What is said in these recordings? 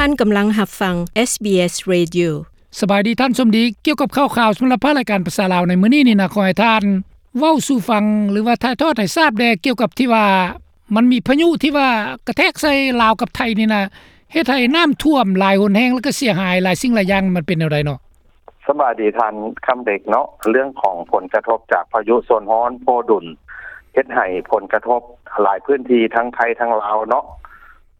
ທ່ານກຳລັງຮັບຟັງ SBS Radio. ສະບາຍດີທ່ານສົມດີ, ກ່ຽວກັບຂ່າວຄາວສຳລັບພາກລາຍການພາສາລາວໃນມື້ນີ້ນີ້ນະ, ຂໍໃຫ້ທ່ານເວົ້າສູ່ຟັງ ຫຼືວ່າຖ່າຍທອດໃຫ້ຊາບແດ່ ກ່ຽວກັບທີ່ວ່າ ມັນມີພາຍຸທີ່ວ່າກະແທກໃສ່ລາວກັບໄທນີ້ນະ, ເຮັດໃຫ້ນ້ຳຖ້ວມຫຼາຍຫົນແຮງ ແລ້ວກໍເສຍຫາຍຫຼາຍສິ່ງຫຼາຍຢ່າງ, ມັນເປັນແນວໃດເນາະ? ສະບາຍດີທ່ານຄຳເດັກເນາະ, ເລື່ອງຂອງຜົນກະທົບຈາກພາຍຸໂຊນຮ້ອນໂພດຸນ ເຮັດໃຫ້ຜົນກະທົບຫຼາຍພື້ນທີ່ທັງໄທທັງລາວເນາະ.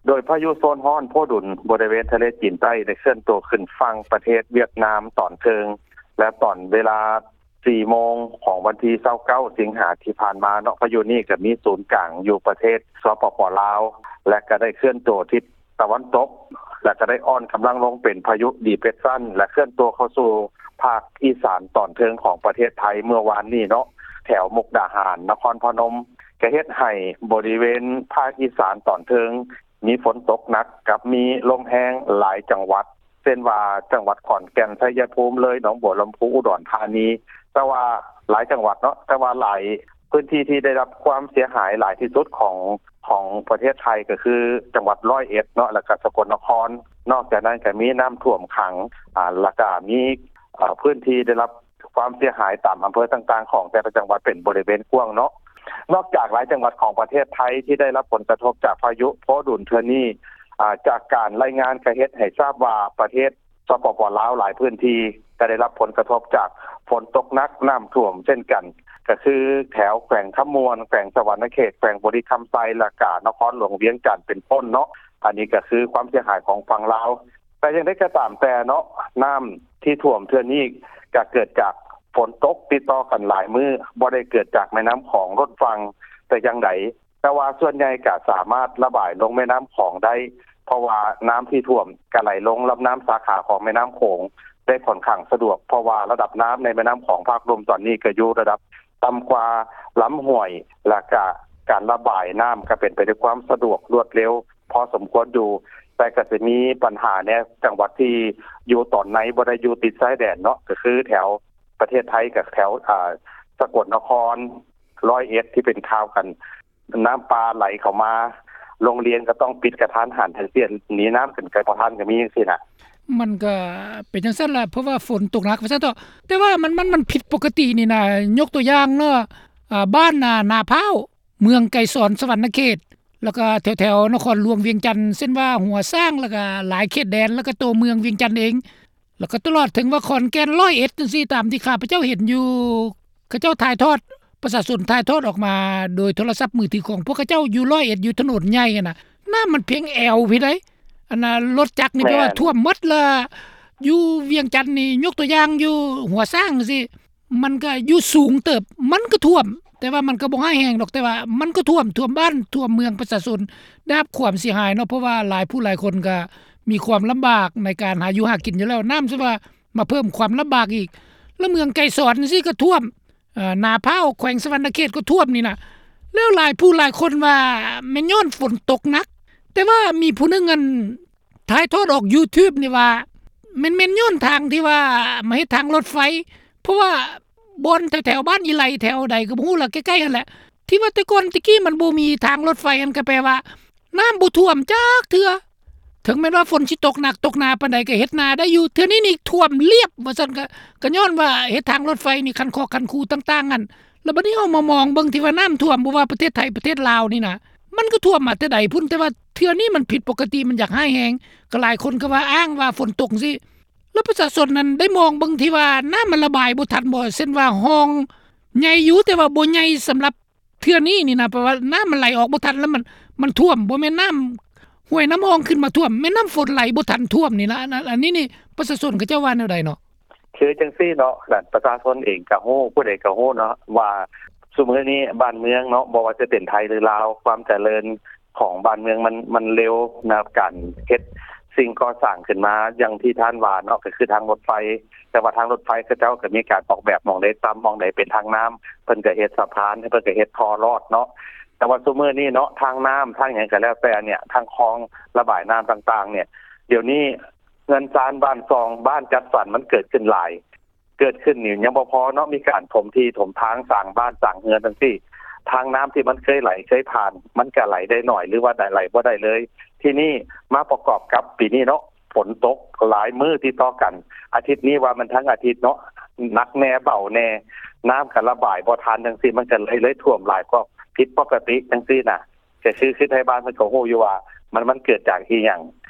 ໂດຍພາຍຸໂຊນຮ້ອນໂພດຸນບໍລິເວນທະເລຈີນໃຕ້ໄດ້ເຄື່ອນຕົວຂຶ້ນຝັ່ງປະເທດຫວຽດນາມຕອນເທິງ ແລະ ຕອນເວລາ ສີ່ໂມງຂອງວັນທີຊາວເກົ້າ ສິງຫາທີ່ຜ່ານມາເນາະ, ພາຍຸນີ້ກໍມີສູນກາງຢູ່ປະເທດ ສປປ ລາວ ແລະ ກໍໄດ້ເຄື່ອນຕົວທິດຕາເວັນຕົກ ແລະ ກໍໄດ້ອ່ອນກຳລັງລົງເປັນພາຍຸດີເປຣສຊັນ ແລະ ເຄື່ອນຕົວເຂົ້າສູ່ພາກອີສານຕອນເທິງຂອງປະເທດໄທເມື່ອວານນີ້ເນາະ, ແຖວມຸກດາຫານ, ນະຄອນພະນົມ, ກໍເຮັດໃຫ້ບໍລິເວນພາກອີສານຕອນເທິງ ມີຝົນຕົກໜັກກັບມີລົມແຮງຫຼາຍຈັງຫວັດ ເຊັ່ນວ່າ ຈັງຫວັດຂອນແກ່ນ, ໄຊຍະພູມ, ເລີຍ, ໜອງບົວລຳພູ, ອຸດອນທານີ, ແຕ່ວ່າຫຼາຍຈັງຫວັດເນາະ, ແຕ່ວ່າຫຼາຍພື້ນທີ່ທີ່ໄດ້ຮັບຄວາມເສຍຫາຍຫຼາຍທີ່ສຸດຂອງ ຂອງປະເທດໄທກໍຄືຈັງຫວັດຮ້ອຍເອັດເນາະ ແລ້ວກໍສະກົນນະຄອນ. ນອກຈາກນັ້ນກໍມີນ້ຳຖ້ວມຂັງ ອາ ແລ້ວກໍມີ ອາ ພື້ນທີ່ໄດ້ຮັບຄວາມເສຍຫາຍຕາມອຳເພີຕ່າງໆຂອງແຕ່ລະຈັງຫວັດເປັນບໍລິເວນກວ້າງເນາະ. ນອກຈາກຫຼາຍຈັງຫວັດຂອງປະເທດໄທທີ່ໄດ້ຮັບຜົນກະທົບຈາກພາຍຸໂພດຸນເທື່ອນີ້ ອາ ຈາກການລາຍງານກໍເຮັດໃຫ້ຊາບວ່າປະເທດ ສປປ ລາວ ຫຼາຍພື້ນທີ່ກໍໄດ້ຮັບຜົນກະທົບຈາກຝົນຕົກໜັກ, ນ້ຳຖ້ວມເຊັ່ນກັນ, ກໍຄືແຖວແຂວງຄຳມ່ວນ, ແຂວງສະຫວັນນະເຂດ, ແຂວງບໍລິຄຳໄຊ ແລ້ວກະນະຄອນຫຼວງວຽງຈັນເປັນຕົ້ນເນາະ. ອັນນີ້ກໍຄືຄວາມເສຍຫາຍຂອງຝັ່ງລາວ. ແຕ່ຢ່າງໃດກໍຕາມແຕ່ເນາະ, ນ້ຳທີ່ຖ້ວມເທື່ອນີ້ກໍເກີດຈາກຝົນຕົກຕິດຕໍ່ກັນຫຼາຍມື້, ບໍ່ໄດ້ເກີດຈາກແມ່ນ້ຳຂອງລົ້ນຝັ່ງແຕ່ຢ່າງໃດ. ແຕ່ວ່າສ່ວນໃຫຍ່ກໍສາມາດລະບາຍລົງແມ່ນ້ຳຂອງໄດ້, ເພາະວ່ານ້ຳທີ່ຖ້ວມກໍໄຫຼລົງລຳນ້ຳສາຂາຂອງແມ່ນ້ຳໂຂງໄດ້ຂ້ອນຂ້າງສະດວກ, ເພາະວ່າລະດັບນ້ຳໃນແມ່ນ້ຳຂອງພາກລຸ່ມຕອນນີ້ກໍຢູ່ລະດັບຕ່ຳກວ່າລຳຫ້ວຍ, ແລ້ວກໍການລະບາຍນ້ຳກໍເປັນໄປດ້ວຍຄວາມສະດວກລວດເລັວພໍສົມຄວນຢູ່. ແຕ່ກໍຈະມີບັນຫາແດ່ ຈັງຫວັດທີ່ຢູ່ຕອນໃນ ບໍ່ໄດ້ຢູ່ຕິດຊາຍແດນເນາະ, ກໍຄືແຖວປະເທດໄທ ກໍແຖວ ອາ ສະກົນນະຄອນ, ຮ້ອຍເອັດ ທີ່ເປັນຂ່າວກັນ ນ້ຳປ່າໄຫຼເຂົ້າມາ, ໂຮງຮຽນກໍຕ້ອງປິດກະທັນຫັນ ຈັ່ງຊີ້ ໜີນ້ຳຂຶ້ນໄກບໍ່ທັນກໍມີຈັ່ງຊີ້ນະ. ມັນກໍເປັນຈັ່ງຊັ້ນລະ ເພາະວ່າຝົນຕົກໜັກວ່າຊັ້ນເຖາະ. ແຕ່ວ່າມັນ ມັນ ມັນຜິດປົກກະຕິນີ້ນະ, ຍົກຕົວຢ່າງເນາະ, ອາ ບ້ານນາ ນາພ້າວ, ເມືອງໄກສອນ ສະຫວັນນະເຂດ, ແລ້ວກໍແຖວໆນະຄອນຫຼວງວຽງຈັນ ເຊັ່ນວ່າຫົວຊ້າງ, ແລ້ວກໍຫຼາຍເຂດແດນ, ແລ້ວກໍຕົວເມືອງວຽງຈັນເອງ, ແລ້ວກໍຕະຫຼອດເຖິງວ່າຂອນແກ່ນ, ຮ້ອຍເອັດ ຈັ່ງຊີ້ ຕາມທີ່ຂ້າພະເຈົ້າເຫັນຢູ່ ເຂົາເຈົ້າຖ່າຍທອດ, ປະຊາຊົນຖ່າຍທອດອອກມາໂດຍໂທລະສັບມືຖືຂອງພວກເຂົາເຈົ້າຢູ່ຮ້ອຍເອັດ ຢູ່ຖະໜົນໃຫຍ່ຫັ້ນນະ, ນ້ຳມັນພຽງແອວພີ້ໃດ໋. ອັນນ່າ ລົດຈັກນີ້ແປວ່າຖ້ວມໝົດລະ. ຢູ່ວຽງຈັນນີ້ ຍົກຕົວຢ່າງຢູ່ຫົວຊ້າງຊີ້ ມັນກໍຢູ່ສູງເຕີບ, ມັນກໍຖ້ວມ, ແຕ່ວ່າມັນກໍບໍ່ຮ້າຍແຮງດອກ, ແຕ່ວ່າມັນກໍຖ້ວມ, ຖ້ວມບ້ານ, ຖ້ວມເມືອງ, ປະຊາຊົນໄດ້ຮັບຄວາມເສຍຫາຍເນາະ, ເພາະວ່າຫຼາຍຜູ້ຫຼາຍຄົນກໍມີຄວາມລຳບາກໃນການຫາຢູ່ຫາກິນຢູ່ແລ້ວ, ນ້ຳຊະວ່າມາເພີ່ມຄວາມລຳບາກອີກ. ແລ້ວເມືອງໄກສອນຊີ້ກໍຖ້ວມ, ເອີ ນາພ້າວ ແຂວງສະຫວັນນະເຂດກໍຖ້ວມນີ້ນະ. ແລ້ວຫຼາຍຜູ້ຫຼາຍຄົນວ່າແມ່ນຍ້ອນຝົນຕົກໜັກ, ແຕ່ວ່າມີຜູ້ໜຶ່ງ ອັນ ຖ່າຍທອດອອກ YouTube ນີ້ວ່າ ແມ່ນ ແມ່ນຍ້ອນທາງທີ່ວ່າມາເຮັດທາງລົດໄຟ, ເພາະວ່າບ່ອນແຖວໆບ້ານອີໄລ ແຖວໃດກໍບໍ່ຮູ້ລະ ໃກ້ໆຫັ້ນແຫຼະ ທີ່ວ່າແຕ່ກ່ອນແຕ່ກີ້ມັນບໍ່ມີທາງລົດໄຟ, ຫັ້ນກໍແປວ່ານ້ຳບໍ່ຖ້ວມຈັກເທື່ອ. ເຖິງແມ່ນວ່າຝົນຊິຕົກໜັກຕົກໜາປານໃດກໍເຮັດນາໄດ້ຢູ່, ເທື່ອນີ້ນີ້ຖ້ວມລຽບວ່າຊັ້ນ. ກໍ ກໍຍ້ອນວ່າເຮັດທາງລົດໄຟນີ້ ຄັນຄອກຄັນຄູຕ່າງໆຫັ້ນ. ແລ້ວບັດນີ້ເຮົາມາມອງເບິ່ງທີ່ວ່ານ້ຳຖ້ວມ ບໍ່ວ່າປະເທດໄທປະເທດລາວນີ້ນະ ມັນກໍຖ້ວມມາແຕ່ໃດພຸ້ນ, ແຕ່ວ່າເທື່ອນີ້ມັນຜິດປົກກະຕິ, ມັນຢາກຮ້າຍແຮງ, ກໍຫຼາຍຄົນກໍວ່າອ້າງວ່າຝົນຕົກຈັ່ງຊີ້. ແລ້ວປະຊາຊົນນັ້ນໄດ້ມອງເບິ່ງທີ່ວ່ານ້ຳມັນລະບາຍບໍ່ທັນບໍ່, ເຊັ່ນວ່າຮ່ອງໃຫຍ່ຢູ່ ແຕ່ວ່າບໍ່ໃຫຍ່ສຳລັບເທື່ອນີ້ນີ້ນະ, ແປວ່ານ້ຳມັນໄຫຼອອກບໍ່ທັນ ແລ້ວມັນ ມັນຖ້ວມ, ບໍ່ແມ່ນນ້ຳຫ້ວຍນ້ຳຮ່ອງຂຶ້ນມາຖ້ວມ, ແມ່ນນ້ຳຝົນໄຫຼບໍ່ທັນຖ້ວມນີ້ນະ. ອັນ ອັນ ອັນນີ້ນີ້ປະຊາຊົນເຂົາເຈົ້າວ່າແນວໃດເນາະ? ຄືຈັ່ງຊີ້ເນາະ, ນັ້ນປະຊາຊົນເອງກໍຮູ້, ຜູ້ໃດກໍຮູ້ເນາະວ່າ ຊຸມື້ນີ້ບ້ານເມືອງເນາະ, ບໍ່ວ່າຈະເປັນໄທ ຫຼື ລາວ, ຄວາມຈະເລີນຂອງບ້ານເມືອງມັນ ມັນເລັວນະ, ການເຮັດສິ່ງກໍ່ສ້າງຂຶ້ນມາ ຢ່າງທີ່ທ່ານວ່າເນາະ, ກໍຄືທາງລົດໄຟ. ແຕ່ວ່າທາງລົດໄຟເຂົາເຈົ້າກໍມີການອອກແບບ, ໝ່ອງໃດຕ່ຳ ໝ່ອງໃດເປັນທາງນ້ຳ ເພິ່ນກໍເຮັດສະພານ, ເພິ່ນກໍເຮັດທໍ່ລອດເນາະ. ແຕ່ວ່າຊຸມື້ນີ້ເນາະ, ທາງນ້ຳ ທາງຫຍັງກໍແລ້ວແຕ່ເນຍ, ທາງຄອງລະບາຍນ້ຳຕ່າງໆເນຍ, ດຽວນີ້ ເຮືອນຊານບ້ານຊ່ອງ ບ້ານຈັດສັນ ມັນເກີດຂຶ້ນຫຼາຍ, ເກີດຂຶ້ນນີ້ຍັງບໍ່ພໍເນາະ, ມີການຖົມທີ່ຖົມທາງ ສ້າງບ້ານສ້າງເຮືອນຈັ່ງຊີ້. ທາງນ້ຳທີ່ມັນເຄີຍໄຫຼເຄີຍຜ່ານ ມັນກະໄຫຼໄດ້ໜ້ອຍ ຫຼືວ່າໄດ້ ໄຫຼບໍ່ໄດ້ເລີຍ. ທີນີ້ມາປະກອບກັບປີນີ້ເນາະ ຝົນຕົກຫຼາຍມື້ຕິດຕໍ່ກັນ ອາທິດນີ້ວ່າມັນທັງອາທິດເນາະ ໜັກແດ່ເບົາແດ່ ນ້ຳກະລະບາຍບໍ່ທັນຈັ່ງຊີ້ ມັນກະເລີຍ ເລີຍຖ້ວມຫຼາຍກວ່າຜິດປົກກະຕິຈັ່ງຊີ້ນະ. ກະຄື ຄືໄທບ້ານເພິ່ນກະຮູ້ຢູ່ວ່າ ມັນ ມັນເກີດຈາກອີ່ຫຍັງ.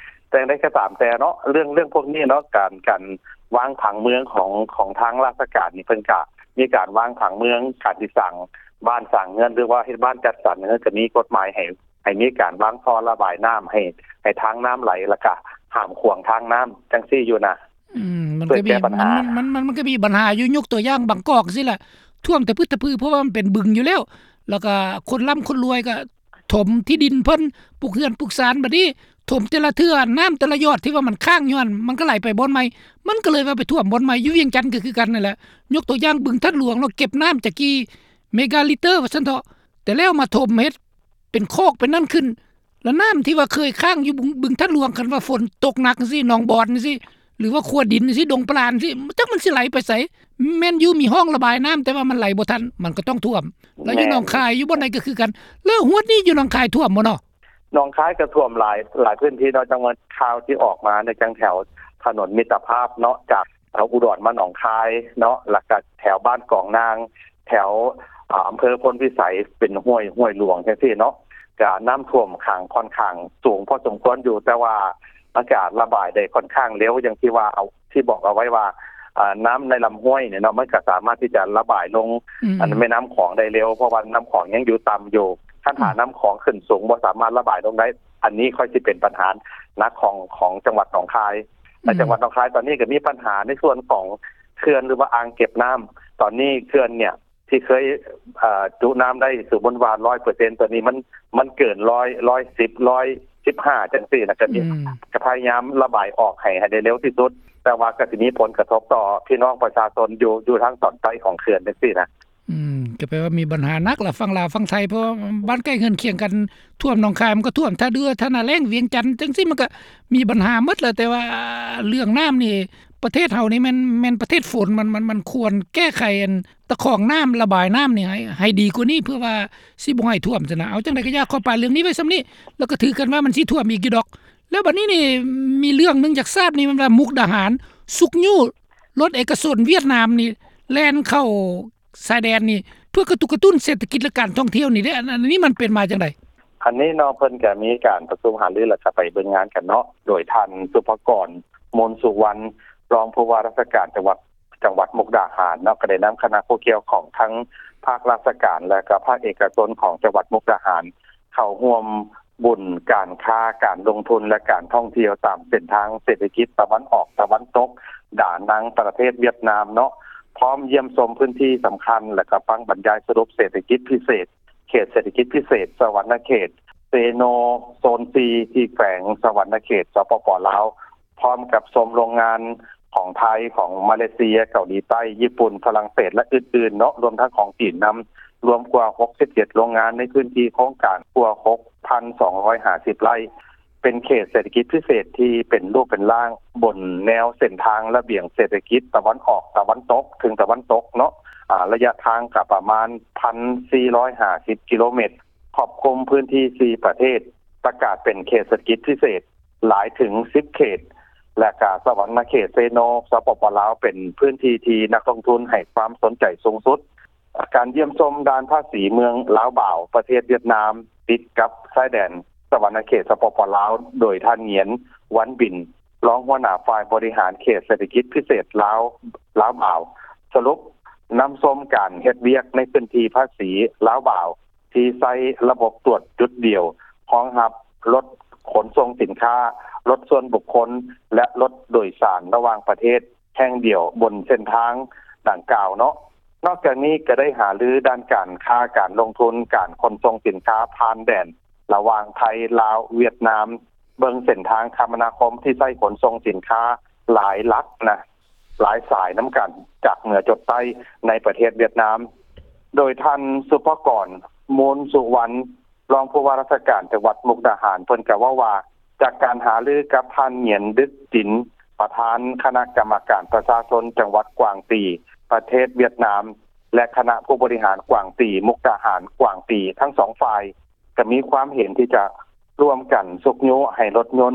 ແຕ່ຢ່າງໃດກະຕາມແຕ່ເນາະ ເລື່ອງ ເລື່ອງພວກນີ້ເນາະ ການ ການວາງຜັງເມືອງຂອງ ຂອງທາງລາຊະການນີ້ ເພິ່ນກະມີການວາງຜັງເມືອງ ການຊິສ້າງບ້ານສ້າງເຮືອນ ຫຼືວ່າເຮັດບ້ານຈັດສັນ ເພິ່ນກະມີກົດໝາຍໃຫ້ ໃຫ້ມີການວາງທໍ່ລະບາຍນ້ຳ ໃຫ້ ໃຫ້ທາງນ້ຳໄຫຼ ລະກະຫ້າມຂວາງທາງນ້ຳຈັ່ງຊີ້ຢູ່ນະ. ອືມ ມັນກະມີ ເພື່ອແກ້ບັນຫາ ມັນ ມັນ ມັນ ມັນກະມີບັນຫາຢູ່ ຍົກຕົວຢ່າງບາງກອກຊີ້ລະ ຖ້ວມຕະພຶດຕະພື ເພາະວ່າມັນເປັນບຶງຢູ່ແລ້ວ ລະກະຄົນລ່ຳຄົນລວຍກະຖົມທີ່ດິນເພິ່ນ ປຸກເຮືອນປຸກຊານ ບາດນີ້ຖົມແຕ່ລະເທື່ອ ນ້ຳແຕ່ລະຢອດທີ່ວ່າມັນຄ້າງຢູ່ຫັ້ນ ມັນກະໄຫຼໄປບ່ອນໃໝ່ ມັນກະເລີຍວ່າໄປຖ້ວມບ່ອນໃໝ່. ຢູ່ວຽງຈັນກະຄືກັນຫັ້ນແຫຼະ ຍົກຕົວຢ່າງບຶງທາດຫຼວງເນາະ ເກັບນ້ຳຈັກກີ່ເມກາລິດເຕີວ່າຊັ້ນເຖາະ ແຕ່ແລ້ວມາຖົມເຮັດ ເປັນຄອກເປັນນັ້ນຂຶ້ນ ລະນ້ຳທີ່ວ່າເຄີຍຄ້າງຢູ່ບຶງ ບຶງທາດຫຼວງ ຄັນວ່າຝົນຕົກໜັກຈັ່ງຊີ້ ໜອງບອນຈັ່ງຊີ້ ຫຼືວ່າຂົວດິນຈັ່ງຊີ້ ດົງປະຫຼານຈັ່ງຊີ້ ຈັກມັນຊິໄຫຼໄປໃສ. ແມ່ນຢູ່ມີຮ່ອງລະບາຍນ້ຳ ແຕ່ວ່າມັນໄຫຼບໍ່ທັນ ມັນກະຕ້ອງຖ້ວມ. ລະຢູ່ ແມ່ນ ໜອງຄາຍ ຢູ່ບ່ອນໃດກະຄືກັນ. ລະຮວດນີ້ຢູ່ໜອງຄາຍຖ້ວມບໍ່ເນາະ? ໜອງຄາຍກະຖ້ວມຫຼາຍ ຫຼາຍພື້ນທີ່ເນາະ ຈັ່ງວ່າຂ່າວທີ່ອອກມາໃນຈັ່ງແຖວຖະໜົນມິດຕະພາບເນາະ ຈາກ ເອີ ອຸດອນມາໜອງຄາຍເນາະ ລະກະແຖວບ້ານກອງນາງ ແຖວ ອາ ອຳເພີໂພນພິໄສ ເປັນຫ້ວຍ ຫ້ວຍຫຼວງຈັ່ງຊີ້ເນາະ ກະນ້ຳຖ້ວມຂັງ ຂ້ອນຂ້າງສູງພໍສົມຄວນຢູ່ ແຕ່ວ່າມັນກະລະບາຍໄດ້ຂ້ອນຂ້າງເລັວ ຢ່າງທີ່ວ່າ ເອົາ ທີ່ບອກເອົາໄວ້ວ່າ ອາ ນ້ຳໃນລຳຫ້ວຍນີ້ເນາະ ມັນກະສາມາດທີ່ຈະລະບາຍລົງ ອືມ ອັນແມ່ນ້ຳຂອງໄດ້ເລັວ ເພາະວ່ານ້ຳຂອງຍັງຢູ່ຕ່ຳຢູ່ ຄັນຖ້າ ອືມ ນ້ຳຂອງຂຶ້ນສູງ ບໍ່ສາມາດລະບາຍລົງໄດ້ ອັນນີ້ຄ່ອຍຊິເປັນບັນຫາໜັກຂອງ ຂອງຈັງຫວັດໜອງຄາຍ. ແລະ ອືມ ຈັງຫວັດໜອງຄາຍຕອນນີ້ກະມີບັນຫາໃນສ່ວນຂອງເຂື່ອນ ຫຼືວ່າອ່າງເກັບນ້ຳ ຕອນນີ້ເຂື່ອນເນີ້ຍ ທີ່ເຄີຍ ເອີ ຈຸນ້ຳໄດ້ ສົມມຸດວ່າ ຮ້ອຍເປີເຊັນ ຕອນນີ້ມັນ ມັນເກີນ ຮ້ອຍ ຮ້ອຍສິບ ຮ້ອຍສິບຫ້າ ຈັ່ງຊີ້ນະ ກະມີ ອືມ ກະພະຍາຍາມລະບາຍອອກໃຫ້ ໃຫ້ໄດ້ເລັວທີ່ສຸດ ແຕ່ວ່າກະຊິມີຜົນກະທົບຕໍ່ພີ່ນ້ອງປະຊາຊົນຢູ່ ຢູ່ທາງຕອນໃຕ້ຂອງເຂື່ອນຈັ່ງຊີ້ນະ. ອືມ ກະແປວ່າມີບັນຫາໜັກລະ ຝັ່ງລາວຝັ່ງໄທ ເພາະວ່າບ້ານໃກ້ເຮືອນຄຽງກັນ ຖ້ວມໜອງຄາຍມັນກະຖ້ວມ ທ່າເຮືອ ທ່ານາແລ້ງ ວຽງຈັນ ຈັ່ງຊີ້ມັນກະມີບັນຫາໝົດລະ. ແຕ່ວ່າເລື່ອງນ້ຳນີ້ ປະເທດເຮົານີ້ແມ່ນ ແມ່ນປະເທດຝົນ ມັນ ມັນ ມັນຄວນແກ້ໄຂອັນ ຕະຂອງນ້ຳ ລະບາຍນ້ຳນີ້ໃຫ້ ໃຫ້ດີກວ່ານີ້ ເພື່ອວ່າຊິບໍ່ໃຫ້ຖ້ວມຊັ້ນນະ. ເອົາ ຈັ່ງໃດກະຢ່າ ຂໍປາຍເລື່ອງນີ້ໄວ້ຊ່ຳນີ້ ລະກະຖືກັນວ່າມັນຊິຖ້ວມອີກຢູ່ດອກ. ລະບາດນີ້ນີ້ ມີເລື່ອງໜຶ່ງຢາກຊາບນີ້ ແມ່ນວ່າມຸກດາຫານຊຸກຍູ້ລົດເອກະຊົນຫວຽດນາມນີ້ ແລ່ນເຂົ້າຊາຍແດນນີ້ ເພື່ອກະຕຸກກະຕຸ້ນເສດຖະກິດ ແລະ ການທ່ອງທ່ຽວນີ້ເດ້ ອັນ ອັນນີ້ມັນເປັນມາຈັ່ງໃດ? ອັນນີ້ເນາະ ເພິ່ນກະມີການປະຊຸມຫາລື ລະກະໄປເບິ່ງງານກັນເນາະ ໂດຍທ່ານ ສຸພະກອນ ມູນສຸວັນ ຮອງຜູ້ວ່າລາຊະການຈັງຫວັດ ຈັງຫວັດມຸກດາຫານເນາະ ກະໄດ້ນຳຄະນະຜູ້ກ່ຽວຂ້ອງທັງພາກລາຊະການ ແລະກະພາກເອກະຊົນຂອງຈັງຫວັດມຸກດາຫານ ເຂົ້າຮ່ວມບຸນການຄ້າ ການລົງທຶນ ແລະການທ່ອງທ່ຽວຕາມເສັ້ນທາງເສດຖະກິດຕາເວັນອອກຕາເວັນຕົກ ດານັງ ປະເທດຫວຽດນາມເນາະ ພ້ອມຢ້ຽມຊົມພື້ນທີ່ສຳຄັນ ແລະກະຟັງບັນຍາຍສະຫຼຸບເສດຖະກິດພິເສດ ເຂດເສດຖະກິດພິເສດສະຫວັນນະເຂດເຊໂນ ໂຊນສີ່ ທີ່ແຂວງສະຫວັນນະເຂດ ສປປ ລາວ ພ້ອມກັບຊົມໂຮງງານຂອງໄທ ຂອງມາເລເຊຍ ເກົາຫຼີໃຕ້ ຍີ່ປຸ່ນ ຝຣັ່ງເສດ ແລະ ອື່ນໆເນາະ ລວມທັງຂອງຈີນນຳ ລວມກວ່າຫົກສິບເຈັດໂຮງງານ ໃນພື້ນທີ່ໂຄງການກວ່າຫົກພັນສອງຮ້ອຍຫ້າສິບໄຮ່ ເປັນເຂດເສດຖະກິດພິເສດທີ່ເປັນຮູບເປັນຮ່າງ ບົນແນວເສັ້ນທາງລະບຽງເສດຖະກິດຕາເວັນອອກຕາເວັນຕົກເຖິງຕາເວັນຕົກເນາະ ອາ ໄລຍະທາງກະປະມານ ໜຶ່ງພັນສີ່ຮ້ອຍຫ້າສິບກິໂລແມັດ ຄອບຄຸມພື້ນທີ່ສີ່ປະເທດ ປະກາດເປັນເຂດເສດຖະກິດພິເສດ ຫຼາຍເຖິງສິບເຂດ ແລະກະສະຫວັນນະເຂດເຊໂນ ສປປ ລາວ ເປັນພື້ນທີ່ທີ່ນັກລົງທຶນໃຫ້ຄວາມສົນໃຈສູງສຸດ. ການຢ້ຽມຊົມດ່ານພາສີເມືອງລາວບາວ ປະເທດຫວຽດນາມ ຕິດກັບຊາຍແດນສະຫວັນນະເຂດ ສປປ ລາວ ໂດຍທ່ານ ຫງຽນ ວັນບິນ ຮອງຫົວໜ້າຝ່າຍບໍລິຫານເຂດເສດຖະກິດພິເສດລາວ ລາວບາວ ສະຫຼຸບນຳຊົມການເຮັດວຽກໃນພື້ນທີ່ພາສີລາວບາວ ທີ່ໃຊ້ລະບົບຕວດຈຸດດຽວ ຮອງຮັບລົດຂົນສົ່ງສິນຄ້າ, ລົດສ່ວນບຸກຄົນ ແລະ ລົດໂດຍສານລະຫວ່າງປະເທດແຫ່ງດຽວບົນເສັ້ນທາງດັ່ງກ່າວເນາະ. ນອກຈາກນີ້ກະໄດ້ຫາລືດ້ານການຄ້າ, ການລົງທຶນ, ການຂົນສົ່ງສິນຄ້າຜ່ານແດນລະຫວ່າງໄທ, ລາວ, ຫວຽດນາມ, ເບິ່ງເສັ້ນທາງຄະມະນາຄົມທີ່ໃຊ້ຂົນສົ່ງສິນຄ້າຫຼາຍຫຼັກນະ, ຫຼາຍສາຍນຳກັນ ຈາກເໜືອຈົດໃຕ້ໃນປະເທດຫວຽດນາມ. ໂດຍທ່ານ ສຸພະກອນ ມູນສຸວັນ ຮອງຜູ້ວ່າລາຊະການຈັງຫວັດມຸກດາຫານ ເພິ່ນກະເວົ້າວ່າ ຈາກການຫາລືກັບທ່ານ ຫງຽນ ດຶກຈິນ ປະທານຄະນະກຳມະການປະຊາຊົນຈັງຫວັດກວາງຕີ ປະເທດຫວຽດນາມ ແລະ ຄະນະຜູ້ບໍລິຫານກວາງຕີ ມຸກດາຫານ ກວາງຕີ ທັງສອງຝ່າຍ ກໍມີຄວາມເຫັນທີ່ຈະຮ່ວມກັນຊຸກຍູ້ໃຫ້ລົດຍົນ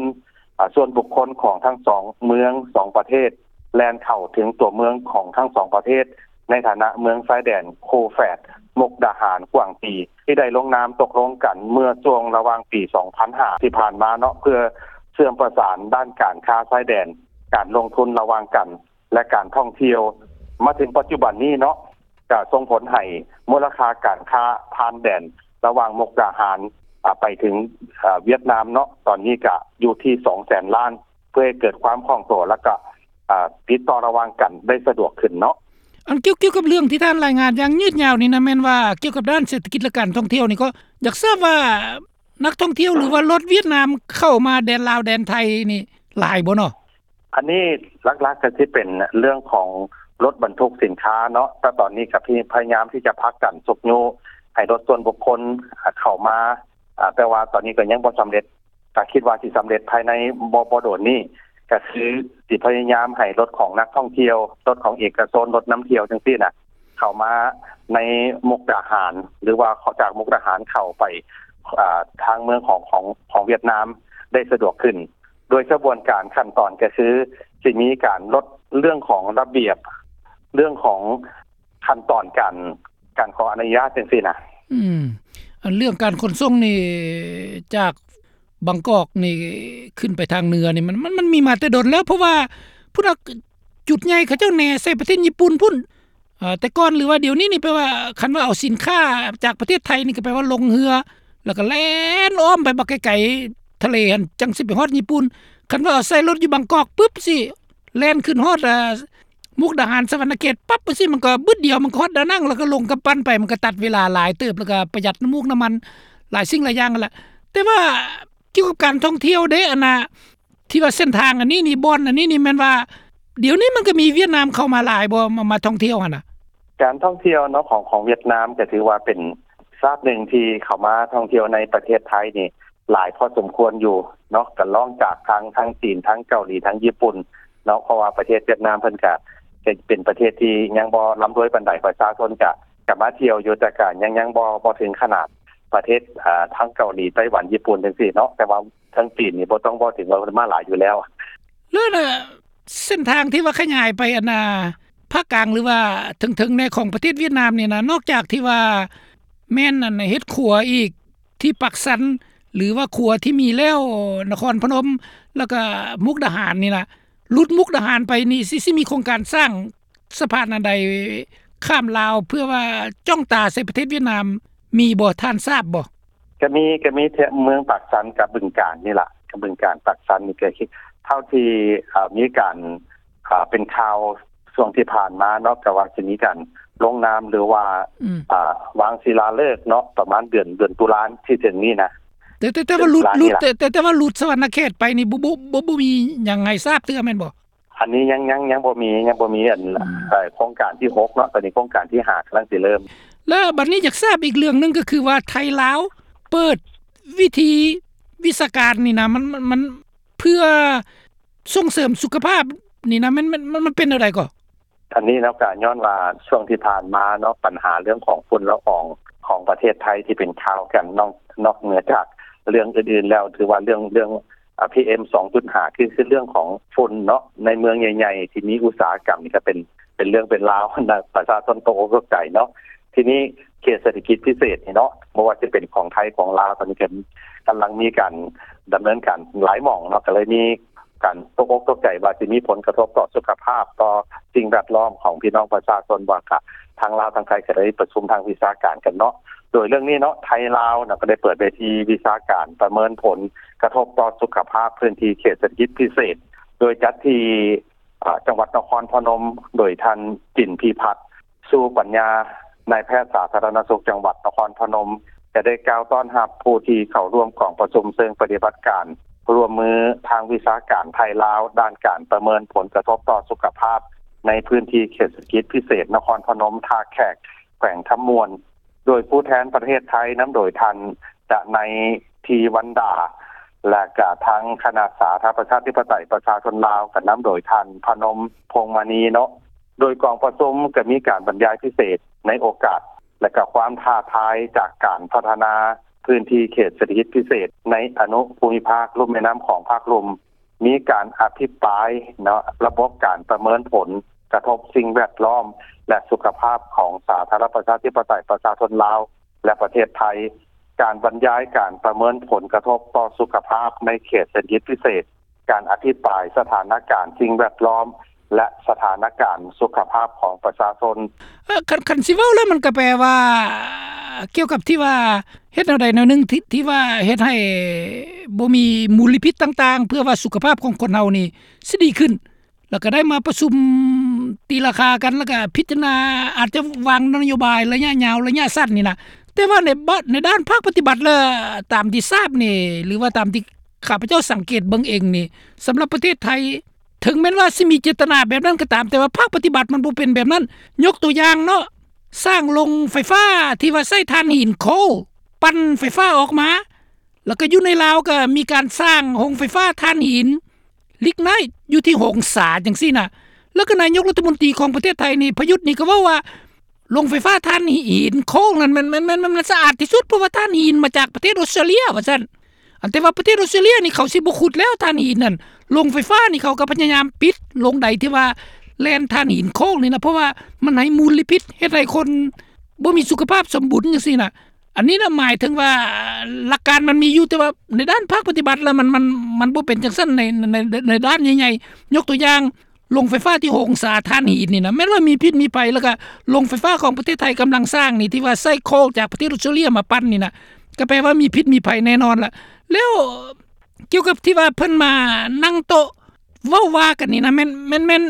ອາ ສ່ວນບຸກຄົນຂອງທັງສອງເມືອງ ສອງປະເທດ ແລ່ນເຂົ້າເຖິງຕົວເມືອງຂອງທັງສອງປະເທດ ໃນຖານະເມືອງຊາຍແດນຄູ່ແຝດ ມຸກດາຫານ ກວາງຕີ ທີ່ໄດ້ລົງນາມຕົກລົງກັນເມື່ອຊ່ວງລະຫວ່າງປີສອງພັນຫ້າ ທີ່ຜ່ານມາເນາະ ເພື່ອເຊື່ອມປະສານດ້ານການຄ້າຊາຍແດນ, ການລົງທຶນລະຫວ່າງກັນ ແລະ ການທ່ອງທ່ຽວ. ມາເຖິງປັດຈຸບັນນີ້ເນາະ ກະສົ່ງຜົນໃຫ້ມູນລະຄ່າການຄ້າຜ່ານແດນລະຫວ່າງມຸກດາຫານ ອາ ໄປເຖິງ ອາ ຫວຽດນາມເນາະ ຕອນນີ້ກະຢູ່ທີ່ສອງແສນລ້ານ ເພື່ອໃຫ້ເກີດຄວາມຄ່ອງຕົວ ແລ້ວກະ ອາ ຕິດຕໍ່ລະຫວ່າງກັນໄດ້ສະດວກຂຶ້ນເນາະ. ອັນກ່ຽວ ກ່ຽວກັບເລື່ອງທີ່ທ່ານລາຍງານຢ່າງຍືດຍາວນີ້ນະ ແມ່ນວ່າກ່ຽວກັບດ້ານເສດຖະກິດ ແລະ ການທ່ອງທ່ຽວນີ້ ກໍຢາກຊາບວ່ານັກທ່ອງທ່ຽວ ຫຼືວ່າລົດຫວຽດນາມເຂົ້າມາແດນລາວແດນໄທນີ້ຫຼາຍບໍ່ເນາະ? ອັນນີ້ຫຼັກໆ ກໍຊິເປັນເລື່ອງຂອງລົດບັນທຸກສິນຄ້າເນາະ ແຕ່ຕອນນີ້ກໍພະຍາຍາມທີ່ຈະຜັກດັນຊຸກຍູ້ໃຫ້ລົດສ່ວນບຸກຄົນ ອາ ເຂົ້າມາ ອາ ແຕ່ວ່າຕອນນີ້ກໍຍັງບໍ່ສຳເລັດ ກໍຄິດວ່າຊິສຳເລັດພາຍໃນບໍ່ ບໍ່ດົນນີ້ ກໍຄືຊິພະຍາຍາມໃຫ້ລົດຂອງນັກທ່ອງທ່ຽວ, ລົດຂອງເອກະຊົນ, ລົດນຳທ່ຽວຈັ່ງຊີ້ນະ ເຂົ້າມາໃນມຸກດາຫານ ຫຼືວ່າຈາກມຸກດາຫານເຂົ້າໄປ ອາ ທາງເມືອງຂອງ ຂອງ ຂອງຫວຽດນາມໄດ້ສະດວກຂຶ້ນ ໂດຍຂະບວນການຂັ້ນຕອນກໍຄືຊິມີການລົດເລື່ອງຂອງລະບຽບ ເລື່ອງຂອງຂັ້ນຕອນການ ການຂໍອະນຸຍາດຈັ່ງຊີ້ນະ. ອືມ ອັນເລື່ອງການຂົນສົ່ງນີ້ ຈາກບາງກອກນີ້ຂຶ້ນໄປທາງເໜືອນີ້ ມັນ ມັນ ມັນມີມາແຕ່ດົນແລ້ວ ເພາະວ່າພຸ້ນນະ ຈຸດໃຫຍ່ເຂົາເຈົ້າແໜໃສ່ປະເທດຍີ່ປຸ່ນພຸ້ນ ເອີ ແຕ່ກ່ອນ ຫຼືວ່າດຽວນີ້ນີ້ ແປວ່າຄັນວ່າເອົາສິນຄ້າຈາກປະເທດໄທນີ້ ກໍແປວ່າລົງເຮືອ ແລ້ວກໍແລ່ນອ້ອມໄປບັກໄກໆ ທະເລຫັ້ນ ຈັ່ງຊິໄປຮອດຍີ່ປຸ່ນ. ຄັນວ່າເອົາໃສ່ລົດຢູ່ບາງກອກປຶບ ຊິແລ່ນຂຶ້ນຮອດ ອາ ມຸກດາຫານ ສະຫວັນນະເຂດປັບ ຈັ່ງຊີ້ ມັນກໍບຶດດຽວ ມັນກໍຮອດດານັງ ແລ້ວກໍລົງກຳປັ່ນໄປ ມັນກໍຕັດເວລາຫຼາຍເຕີບ ແລ້ວກໍປະຢັດນ້ຳມູກນ້ຳມັນ ຫຼາຍສິ່ງຫຼາຍຢ່າງຫັ້ນລະ. ແຕ່ວ່າກ່ຽວກັບການທ່ອງທ່ຽວເດ້ ອັນນ່າ ທີ່ວ່າເສັ້ນທາງອັນນີ້ນີ້ ບ່ອນອັນນີ້ນີ້ ແມ່ນວ່າດຽວນີ້ມັນກໍມີຫວຽດນາມເຂົ້າມາຫຼາຍບໍ່ ມາ ມາທ່ອງທ່ຽວຫັ້ນນະ? ການທ່ອງທ່ຽວເນາະ ຂອງ ຂອງຫວຽດນາມ ກໍຖືວ່າເປັນຊາດໜຶ່ງທີ່ເຂົ້າມາທ່ອງທ່ຽວໃນປະເທດໄທນີ້ຫຼາຍພໍສົມຄວນຢູ່ເນາະ ກໍລອງຈາກທາງ ທາງຈີນ ທາງເກົາຫຼີ ທາງຍີ່ປຸ່ນເນາະ ເພາະວ່າປະເທດຫວຽດນາມເພິ່ນກະ ກະເປັນປະເທດທີ່ຍັງບໍ່ລ່ຳລວຍປານໃດ ປະຊາຊົນກະ ກະມາທ່ຽວຢູ່ ແຕ່ກະຍັງ ຍັງບໍ່ ບໍ່ເຖິງຂະໜາດປະເທດ ອາ ທາງເກົາຫຼີ ໄຕ້ຫວັນ ຍີ່ປຸ່ນ ຈັ່ງຊີ້ເນາະ ແຕ່ວ່າ ທາງຈີນນີ້ບໍ່ຕ້ອງເວົ້າເຖິງ ວ່າເພິ່ນມາຫຼາຍຢູ່ແລ້ວ. ແລ້ວນະ ເສັ້ນທາງທີ່ວ່າຂະຫຍາຍໄປອັນນ່າ ພາກກາງ ຫຼືວ່າເທິງໆ ແດ່ຂອງປະເທດຫວຽດນາມນີ້ນະ ນອກຈາກທີ່ວ່າແມ່ນອັນເຮັດຂົວອີກທີ່ປາກຊັນ ຫຼືວ່າຂົວທີ່ມີແລ້ວ ນະຄອນພະນົມ ແລ້ວກະມຸກດາຫານນີ້ນະ ຫຼຸດມຸກດາຫານໄປນີ້ ຊິ ຊິມີໂຄງການສ້າງ ສະພານອັນໃດຂ້າມລາວ ເພື່ອວ່າຈ້ອງຕາໃສ່ປະເທດຫວຽດນາມ ມີບໍ່ ທ່ານຊາບບໍ່? ກະມີ ກະມີແຕ່ເມືອງປາກຊັນກັບບຶງການນີ້ລະ ກັບບຶງການ ປາກຊັນນີ້ ກະເທົ່າທີ່ ເອີ ມີການ ເປັນຂ່າວຊ່ວງທີ່ຜ່ານມາເນາະ ກະວ່າຊິມີການລົງນາມ ຫຼືວ່າ ອືມ ອາ ວາງສິລາເລີກເນາະ ປະມານເດືອນ ເດືອນຕຸລາທີ່ເຖິງນີ້ນະ. ແຕ່ ແຕ່ ແຕ່ວ່າຫຼຸດ ຫຼຸດ ແຕ່ ແຕ່ ແຕ່ວ່າຫຼຸດສະຫວັນນະເຂດໄປນີ້ ບໍ່ ບໍ່ ບໍ່ ບໍ່ມີຫຍັງໃຫ້ຊາບເທື່ອແມ່ນບໍ່? ອັນນີ້ຍັງ ຍັງ ຍັງບໍ່ມີ ຍັງບໍ່ມີອັນ ອືມ ເອີ ໂຄງການທີຫົກເນາະ ຕອນນີ້ໂຄງການທີຫ້າກຳລັງຊິເລີ່ມ. ແລ້ວບັດນີ້ຢາກຊາບອີກເລື່ອງໜຶ່ງ ກໍຄືວ່າໄທລາວເປີດວິທີວິຊາການນີ້ນະ ມັນ ມັນ ມັນເພື່ອສົ່ງເສີມສຸຂະພາບນີ້ນະ ມັນ ມັນ ມັນ ມັນເປັນແນວໃດກໍ? ອັນນີ້ເນາະ ກະຍ້ອນວ່າຊ່ວງທີ່ຜ່ານມາເນາະ ບັນຫາເລື່ອງຂອງຝຸ່ນລະອອງຂອງປະເທດໄທທີ່ເປັນຂ່າວກັນ ນອກ ນອກເໜືອຈາກເລື່ອງອື່ນໆແລ້ວ ຖືວ່າເລື່ອງ ເລື່ອງ ອາ ພີເອັມສອງຈຸດຫ້າ ຄື ຄືເລື່ອງຂອງຝຸ່ນເນາະ ໃນເມືອງໃຫຍ່ໆທີ່ມີອຸດສາຫະກຳນີ້ກະເປັນ ເປັນເລື່ອງເປັນລາວ ປະຊາຊົນຕົກອົກຕົກໃຈເນາະ. ທີນີ້ເຂດເສດຖະກິດພິເສດນີ້ເນາະ ບໍ່ວ່າຈະເປັນຂອງໄທຂອງລາວ ຕອນນີ້ກະກຳລັງມີການດຳເນີນການຫຼາຍໝ່ອງເນາະ ກະເລີຍມີການຕົກອົກຕົກໃຈວ່າຊິມີຜົນກະທົບຕໍ່ສຸຂະພາບ ຕໍ່ສິ່ງແວດລ້ອມຂອງພີ່ນ້ອງປະຊາຊົນ ວ່າກະທາງລາວທາງໄທກະໄດ້ປະຊຸມທາງວິຊາການກັນເນາະ. ໂດຍເລື່ອງນີ້ເນາະ ໄທລາວເນາະ ກະໄດ້ເປີດເວທີວິຊາການປະເມີນຜົນກະທົບຕໍ່ສຸຂະພາບພື້ນທີ່ເຂດເສດຖະກິດພິເສດ ໂດຍຈັດທີ່ ອາ ຈັງຫວັດນະຄອນພະນົມ ໂດຍທ່ານ ຈິນພິພັດ ຊູປັນຍາ ນາຍແພດສາທາລະນະສຸກຈັງຫວັດນະຄອນພະນົມ ຈະໄດ້ກ່າວຕ້ອນຮັບຜູ້ທີ່ເຂົ້າຮ່ວມກອງປະຊຸມເຊີງປະຕິບັດການຮ່ວມມືທາງວິຊາການໄທລາວ ດ້ານການປະເມີນຜົນກະທົບຕໍ່ສຸຂະພາບໃນພື້ນທີ່ເຂດເສດຖະກິດພິເສດນະຄອນພະນົມທ່າແຂກ ແຂວງຄຳມ່ວນ ໂດຍຜູ້ແທນປະເທດໄທ ນຳໂດຍທ່ານ ດະໄນ ທີວັນດາ ແລະກະທາງຄະນະສາທາລະນະລັດປະຊາທິປະໄຕປະຊາຊົນລາວ ກະນຳໂດຍທ່ານ ພະນົມ ພົງມະນີ ເນາະ. ໂດຍກອງປະຊຸມກະມີການບັນຍາຍພິເສດ ໃນໂອກາດ ແລະ ກໍຄວາມທ້າທາຍຈາກການພັດທະນາພື້ນທີ່ເຂດເສດຖະກິດພິເສດໃນອະນຸພູມິພາກລຸ່ມແມ່ນ້ຳຂອງພາກລຸ່ມ, ມີການອະພິປາຍເນາະ ລະບົບການປະເມີນຜົນກະທົບສິ່ງແວດລ້ອມ ແລະ ສຸຂະພາບຂອງສາທາລະນະລັດປະຊາທິປະໄຕປະຊາຊົນລາວ ແລະ ປະເທດໄທ, ການບັນຍາຍການປະເມີນຜົນກະທົບຕໍ່ສຸຂະພາບໃນເຂດເສດຖະກິດພິເສດ, ການອະທິບາຍສະຖານະການສິ່ງແວດລ້ອມ ແລະ ສະຖານະການສຸຂະພາບຂອງປະຊາຊົນ. ເອີ ຄັນ ຄັນຊິເວົ້າແລ້ວ ມັນກໍແປວ່າ ກ່ຽວກັບທີ່ວ່າເຮັດແນວໃດແນວໜຶ່ງ ທີ່ ທີ່ວ່າເຮັດໃຫ້ບໍ່ມີມົນລະພິດຕ່າງໆ ເພື່ອວ່າສຸຂະພາບຂອງຄົນເຮົານີ້ຊິດີຂຶ້ນ. ແລ້ວກໍໄດ້ມາປະຊຸມຕີລາຄາກັນ ແລ້ວກໍພິຈາລະນາ ອາດຈະວາງນະໂຍບາຍໄລຍະຍາວ ໄລຍະສັ້ນນີ້ນະ. ແຕ່ວ່າໃນບາດ ໃນດ້ານພາກປະຕິບັດແລ້ວ ຕາມທີ່ຊາບນີ້ ຫຼືວ່າຕາມທີ່ຂ້າພະເຈົ້າສັງເກດເບິ່ງເອງນີ້ ສຳລັບປະເທດໄທ ເຖິງແມ່ນວ່າຊິມີເຈດຕະນາແບບນັ້ນກໍຕາມ, ແຕ່ວ່າພາກປະຕິບັດມັນບໍ່ເປັນແບບນັ້ນ. ຍົກຕົວຢ່າງເນາະ, ສ້າງໂຮງໄຟຟ້າທີ່ວ່າໃຊ້ຖ່ານຫີນໂຄລປັ່ນໄຟຟ້າອອກມາ, ແລ້ວກໍຢູ່ໃນລາວກໍມີການສ້າງໂຮງໄຟຟ້າຖ່ານຫີນລິກໄນຢູ່ທີ່ຫົງສາຈັ່ງຊີ້ນະ. ແລ້ວກໍນາຍົກລັດຖະມົນຕີຂອງປະເທດໄທນີ້ ປະຍຸດນີ້ ກໍເວົ້າວ່າ ໂຮງໄຟຟ້າຖ່ານຫີນໂຄລນັ້ນ ມັນ ມັນ ມັນ ມັນ ມັນສະອາດທີ່ສຸດ ເພາະວ່າຖ່ານຫີນມາຈາກປະເທດອົດສະຕຣາເລຍ ວ່າຊັ້ນ. ອັນ ແຕ່ວ່າປະເທດອົດສະຕຣາເລຍນີ້ ເຂົາຊິບໍ່ຂຸດແລ້ວຖ່ານຫີນນັ້ນ. ໂຮງໄຟຟ້ານີ້ ເຂົາກໍພະຍາຍາມປິດໂຮງໃດທີ່ວ່າແລ່ນຖ່ານຫີນໂຄລນີ້ນະ ເພາະວ່າມັນໃຫ້ມົນລະພິດ ເຮັດໃຫ້ຄົນບໍ່ມີສຸຂະພາບສົມບູນຈັ່ງຊີ້ນະ. ອັນນີ້ນະ ໝາຍເຖິງວ່າຫຼັກການມັນມີຢູ່, ແຕ່ວ່າໃນດ້ານພາກປະຕິບັດແລ້ວ ມັນ ມັນ ມັນບໍ່ເປັນຈັ່ງຊັ້ນໃນ ໃນ ໃນດ້ານໃຫຍ່ໆ. ຍົກຕົວຢ່າງ ໂຮງໄຟຟ້າທີ່ຫົງສາຖ່ານຫີນນີ້ນະ ແມ່ນວ່າມີພິດມີໄພ, ແລ້ວກະໂຮງໄຟຟ້າຂອງປະເທດໄທກຳລັງສ້າງນີ້ ທີ່ວ່າໃຊ້ໂຄລຈາກປະເທດອົດສະຕຣາເລຍມາປັ່ນນີ້ນະ ກໍແປວ່າມີພິດມີໄພແນ່ນອນລະ. ແລ້ວກ່ຽວກັບທີ່ວ່າເພິ່ນມານັ່ງໂຕະເວົ້າວ່າກັນນີ້ນະ ແມ່ນ ແມ່ນ ແມ່ນ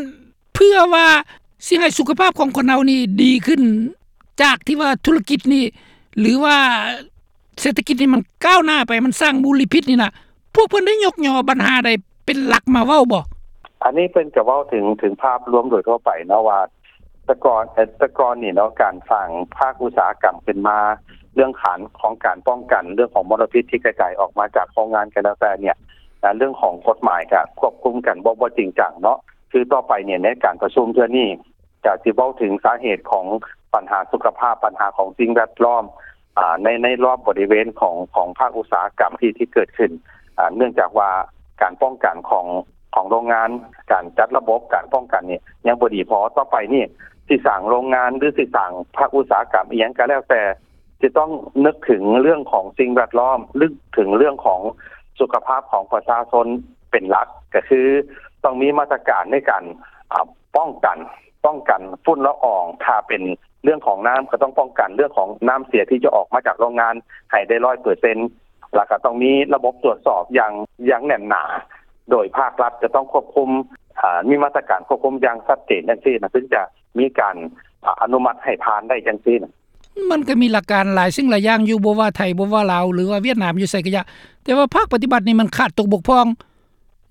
ເພື່ອວ່າຊິໃຫ້ສຸຂະພາບຂອງຄົນເຮົານີ້ດີຂຶ້ນ ຈາກທີ່ວ່າທຸລະກິດນີ້ ຫຼືວ່າເສດຖະກິດນີ້ມັນກ້າວໜ້າໄປ ມັນສ້າງມົນລະພິດນີ້ນະ ພວກເພິ່ນໄດ້ຍົກຍໍບັນຫາໃດເປັນຫຼັກມາເວົ້າບໍ່? ອັນນີ້ເພິ່ນກໍເວົ້າເຖິງ ເຖິງພາບລວມໂດຍທົ່ວໄປເນາະ ວ່າແຕ່ກ່ອນ ເອີ ແຕ່ກ່ອນນີ້ເນາະ ການສ້າງພາກອຸດສາຫະກຳຂຶ້ນມາ ເລື່ອງຂານຂອງການປ້ອງກັນເລື່ອງຂອງມົນລະພິດທີ່ກະຈາຍອອກມາຈາກໂຮງງານກໍແລ້ວແຕ່ເນ່ຍ ເລື່ອງຂອງກົດໝາຍກໍຄວບຄຸມກັນບໍ່ ບໍ່ຈິງຈັງເນາະ. ຄືຕໍ່ໄປເນ່ຍ ໃນການປະຊຸມເທື່ອນີ້ ກະຊິເວົ້າເຖິງສາເຫດຂອງບັນຫາສຸຂະພາບ, ບັນຫາຂອງສິ່ງແວດລ້ອມ ອາ ໃນ ໃນລອບບໍລິເວນຂອງ ຂອງພາກອຸດສາຫະກຳທີ່ ທີ່ເກີດຂຶ້ນ ອາ ເນື່ອງຈາກວ່າການປ້ອງກັນຂອງ ຂອງໂຮງງານ, ການຈັດລະບົບການປ້ອງກັນນີ້ຍັງບໍ່ດີພໍ. ຕໍ່ໄປນີ້ຊິສ້າງໂຮງງານ ຫຼື ຊິສ້າງພາກອຸດສາຫະກຳອີ່ຫຍັງກໍແລ້ວແຕ່ ຈະຕ້ອງນຶກເຖິງເລື່ອງຂອງສິ່ງແວດລ້ອມ, ນຶກເຖິງເລື່ອງຂອງສຸຂະພາບຂອງປະຊາຊົນເປັນຫຼັກ, ກໍຄືຕ້ອງມີມາດຕະການໃນການ ອາ ປ້ອງກັນ ປ້ອງກັນຝຸ່ນລະອອງ. ຖ້າເປັນເລື່ອງຂອງນ້ຳ ກໍຕ້ອງປ້ອງກັນເລື່ອງຂອງນ້ຳເສຍທີ່ຈະອອກມາຈາກໂຮງງານໃຫ້ໄດ້ຮ້ອຍເປີເຊັນ, ແລ້ວກໍຕ້ອງມີລະບົບຕວດສອບຢ່າງ ຢ່າງແໜ້ນໜາ, ໂດຍພາກລັດຈະຕ້ອງຄວບຄຸມ ອາ ມີມາດຕະການຄວບຄຸມຢ່າງຊັດເຈນຈັ່ງຊີ້ນະ ເຖິງຈະມີການ ອາ ອະນຸມັດໃຫ້ຜ່ານໄດ້ຈັ່ງຊີ້ນະ. ມັນກໍມີຫຼັກການຫຼາຍສິ່ງຫຼາຍຢ່າງຢູ່, ບໍ່ວ່າໄທ ບໍ່ວ່າລາວ ຫຼືວ່າຫວຽດນາມ ຢູ່ໃສກໍຢ່າ, ແຕ່ວ່າພາກປະຕິບັດນີ້ມັນຂາດຕົກບົກຜ່ອງ.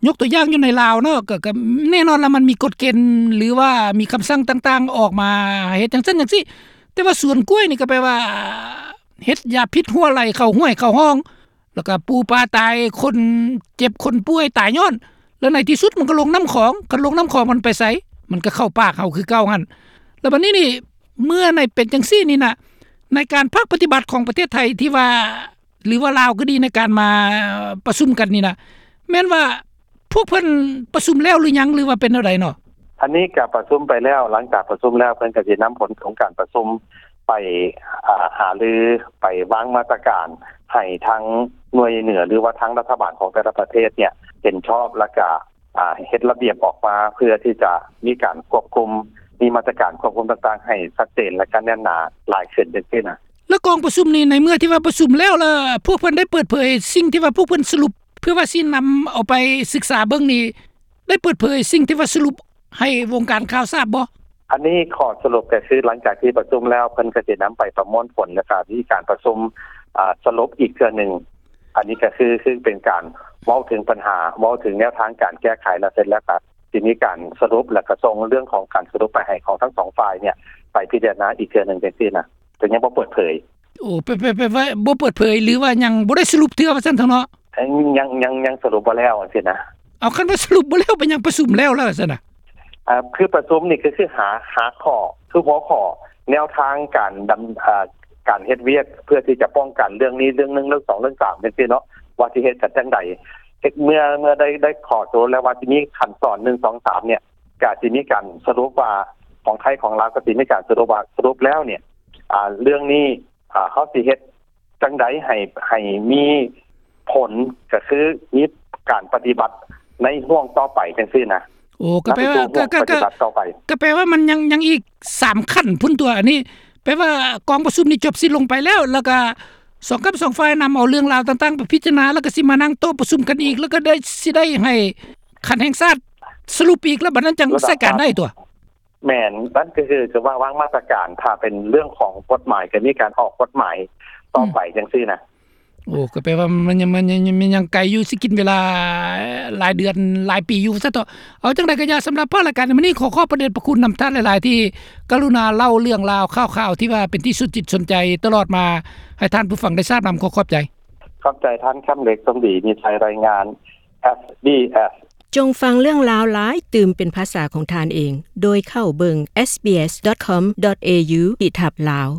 ຍົກຕົວຢ່າງຢູ່ໃນລາວເນາະ ກໍ ກໍແນ່ນອນລະ ມັນມີກົດເກນ ຫຼືວ່າມີຄຳສັ່ງຕ່າງໆອອກມາເຮັດຈັ່ງຊັ້ນຈັ່ງຊີ້, ແຕ່ວ່າສວນກ້ວຍນີ້ກໍແປວ່າເຮັດຢາພິດຮົ່ວໄຫຼເຂົ້າຫ້ວຍເຂົ້າຮ່ອງ ແລ້ວກໍປູປາຕາຍ, ຄົນເຈັບຄົນປ່ວຍຕາຍຍ້ອນ, ແລ້ວໃນທີ່ສຸດມັນກໍລົງນ້ຳຂອງ, ຄັນລົງນ້ຳຂອງມັນໄປໃສ? ມັນກໍເຂົ້າປາກເຮົາຄືເກົ່າຫັ້ນ. ແລ້ວບັດນີ້ນີ້ ເມື່ອໃນເປັນຈັ່ງຊີ້ນີ້ນະ ໃນການພາກປະຕິບັດຂອງປະເທດໄທທີ່ວ່າ ຫຼືວ່າລາວກໍດີ ໃນການມາປະຊຸມກັນນີ້ນະ ແມ່ນວ່າພວກເພິ່ນປະຊຸມແລ້ວຫຼືຍັງ ຫຼືວ່າເປັນແນວໃດເນາະ? ອັນນີ້ກໍປະຊຸມໄປແລ້ວ, ຫຼັງຈາກປະຊຸມແລ້ວ ເພິ່ນກໍຊິນຳຜົນຂອງການປະຊຸມໄປ ອາ ຫາລື, ໄປວາງມາດຕະການໃຫ້ທາງໜ່ວຍເໜືອ ຫຼືວ່າທາງລັດຖະບານຂອງແຕ່ລະປະເທດເນ່ຍເຫັນຊອບ ແລ້ວກໍ ອາ ເຮັດລະບຽບອອກມາ ເພື່ອທີ່ຈະມີການຄວບຄຸມ, ມີມາດຕະການຄວບຄຸມຕ່າງໆໃຫ້ຊັດເຈນ ແລະ ກໍແໜ້ນໜາຫຼາຍຂຶ້ນຈັ່ງຊີ້ນະ. ແລ້ວກອງປະຊຸມນີ້ ໃນເມື່ອທີ່ວ່າປະຊຸມແລ້ວ ແລ້ວພວກເພິ່ນໄດ້ເປີດເຜີຍສິ່ງທີ່ວ່າພວກເພິ່ນສະຫຼຸບ ເພື່ອວ່າຊິນຳເອົາໄປສຶກສາເບິ່ງນີ້ ໄດ້ເປີດເຜີຍສິ່ງທີ່ວ່າສະຫຼຸບໃຫ້ວົງການຂ່າວຊາບບໍ່? ອັນນີ້ຂໍ້ສະຫຼຸບກໍຄື ຫຼັງຈາກທີ່ປະຊຸມແລ້ວ ເພິ່ນກໍຊິນຳໄປປະມວນຜົນ ແລ້ວກໍມີການປະຊຸມ ອາ ສະຫຼຸບອີກເທື່ອໜຶ່ງ. ອັນນີ້ກໍຄື ຄືເປັນການເວົ້າເຖິງບັນຫາ, ເວົ້າເຖິງແນວທາງການແກ້ໄຂ ແລ້ວເສັດແລ້ວກໍຊິມີການສະຫຼຸບ ແລ້ວກໍສົ່ງເລື່ອງຂອງການສະຫຼຸບໄປໃຫ້ຂອງທັງສອງຝ່າຍເນ່ຍໄປພິຈາລະນາອີກເທື່ອໜຶ່ງຈັ່ງຊີ້ນະ, ແຕ່ຍັງບໍ່ເປີດເຜີຍ. ໂອ້ ແປ ແປ ແປວ່າບໍ່ເປີດເຜີຍ ຫຼືວ່າຍັງບໍ່ໄດ້ສະຫຼຸບເທື່ອວ່າຊັ້ນເຖາະເນາະ? ຍັງ ຍັງ ຍັງສະຫຼຸບບໍ່ແລ້ວຈັ່ງຊີ້ນະ. ເອົາ ຄັນວ່າສະຫຼຸບບໍ່ແລ້ວ ເປັນຫຍັງປະຊຸມແລ້ວ ແລ້ວຊັ້ນນະ? ອາ ຄືປະຊຸມນີ້ກໍຄືຫາ ຫາຂໍ້ ຄືຫົວຂໍ້ ແນວທາງການດຳ ເອີ່ ການເຮັດວຽກເພື່ອທີ່ຈະປ້ອງກັນເລື່ອງນີ້ ເລື່ອງໜຶ່ງ ເລື່ອງສອງ ເລື່ອງສາມ ຈັ່ງຊີ້ເນາະ ວ່າຊິເຮັດກັນຈັ່ງໃດ. ເຮັດ ເມື່ອ ເມື່ອໄດ້ ໄດ້ຂໍ້ຕົກລົງແລ້ວວ່າຊິມີຂັ້ນຕອນ ໜຶ່ງ ສອງ ສາມ ເນ່ຍ ກະຊິມີການສະຫຼຸບວ່າ ຂອງໄທຂອງລາວກະຊິມີການສະຫຼຸບວ່າ ສະຫຼຸບແລ້ວເນ່ຍ ອາ ເລື່ອງນີ້ ອາ ເຮົາຊິເຮັດຈັ່ງໃດໃຫ້ ໃຫ້ມີຜົນ ກະຄືມີການປະຕິບັດໃນຫ່ວງຕໍ່ໄປຈັ່ງຊີ້ນະ. ໂອ້ ກະແປວ່າ ກະ ກະ ກະ ກະແປວ່າມັນຍັງ ຍັງອີກສາມຂັ້ນພຸ້ນຕົວະ ອັນນີ້ແປວ່າກອງປະຊຸມນີ້ຈົບສິ້ນລົງໄປແລ້ວ ແລ້ວກະສອງກັບສອງຝ່າຍນຳເອົາເລື່ອງລາວຕ່າງໆໄປພິຈາລະນາ ແລ້ວກະຊິມານັ່ງໂຕະປະຊຸມກັນອີກ ແລ້ວກະໄດ້ ຊິໄດ້ໃຫ້ຂັ້ນແຫ່ງຊາດສະຫຼຸບອີກ ແລ້ວບັດນັ້ນຈັ່ງໃຊ້ການໄດ້ຕົວະ. ແມ່ນ ນັ້ນກະຄື ກະວ່າວາງມາດຕະການ ຖ້າເປັນເລື່ອງຂອງກົດໝາຍ ກະມີການອອກກົດໝາຍຕໍ່ໄປ ອືມ ຈັ່ງຊີ້ນະ. ໂອ້ ກະແປວ່າມັນຍັງ ມັນຍັງ ມັນຍັງໄກຢູ່ ຊິກິນເວລາຫຼາຍເດືອນຫຼາຍປີຢູ່ຊັ້ນເຖາະ. ເອົາຈັ່ງໃດກະຢ່າ ສຳລັບພາກລາຍການໃນມື້ນີ້ ຂໍຂອບພະເດດພະຄຸນນຳທ່ານຫຼາຍໆ ທີ່ກະລຸນາເລົ່າເລື່ອງລາວຂ່າວໆ ທີ່ວ່າເປັນທີ່ສົນຈິດສົນໃຈຕະຫຼອດມາ ໃຫ້ທ່ານຜູ້ຟັງໄດ້ຊາບນຳ. ຂໍຂອບໃຈ. ຂອບໃຈທ່ານຄຳເລັກ ສົມດີ ມີໄຊ ລາຍງານ ເອສບີເອສ. ຈົ່ງຟັງເລື່ອງລາວຫຼາຍຕື່ມເປັນພາສາຂອງທ່ານເອງ ໂດຍເຂົ້າເບິ່ງ ເອສບີເອສດອດຄອມດອດເອຢູ ຂີດທັບ ລາວ.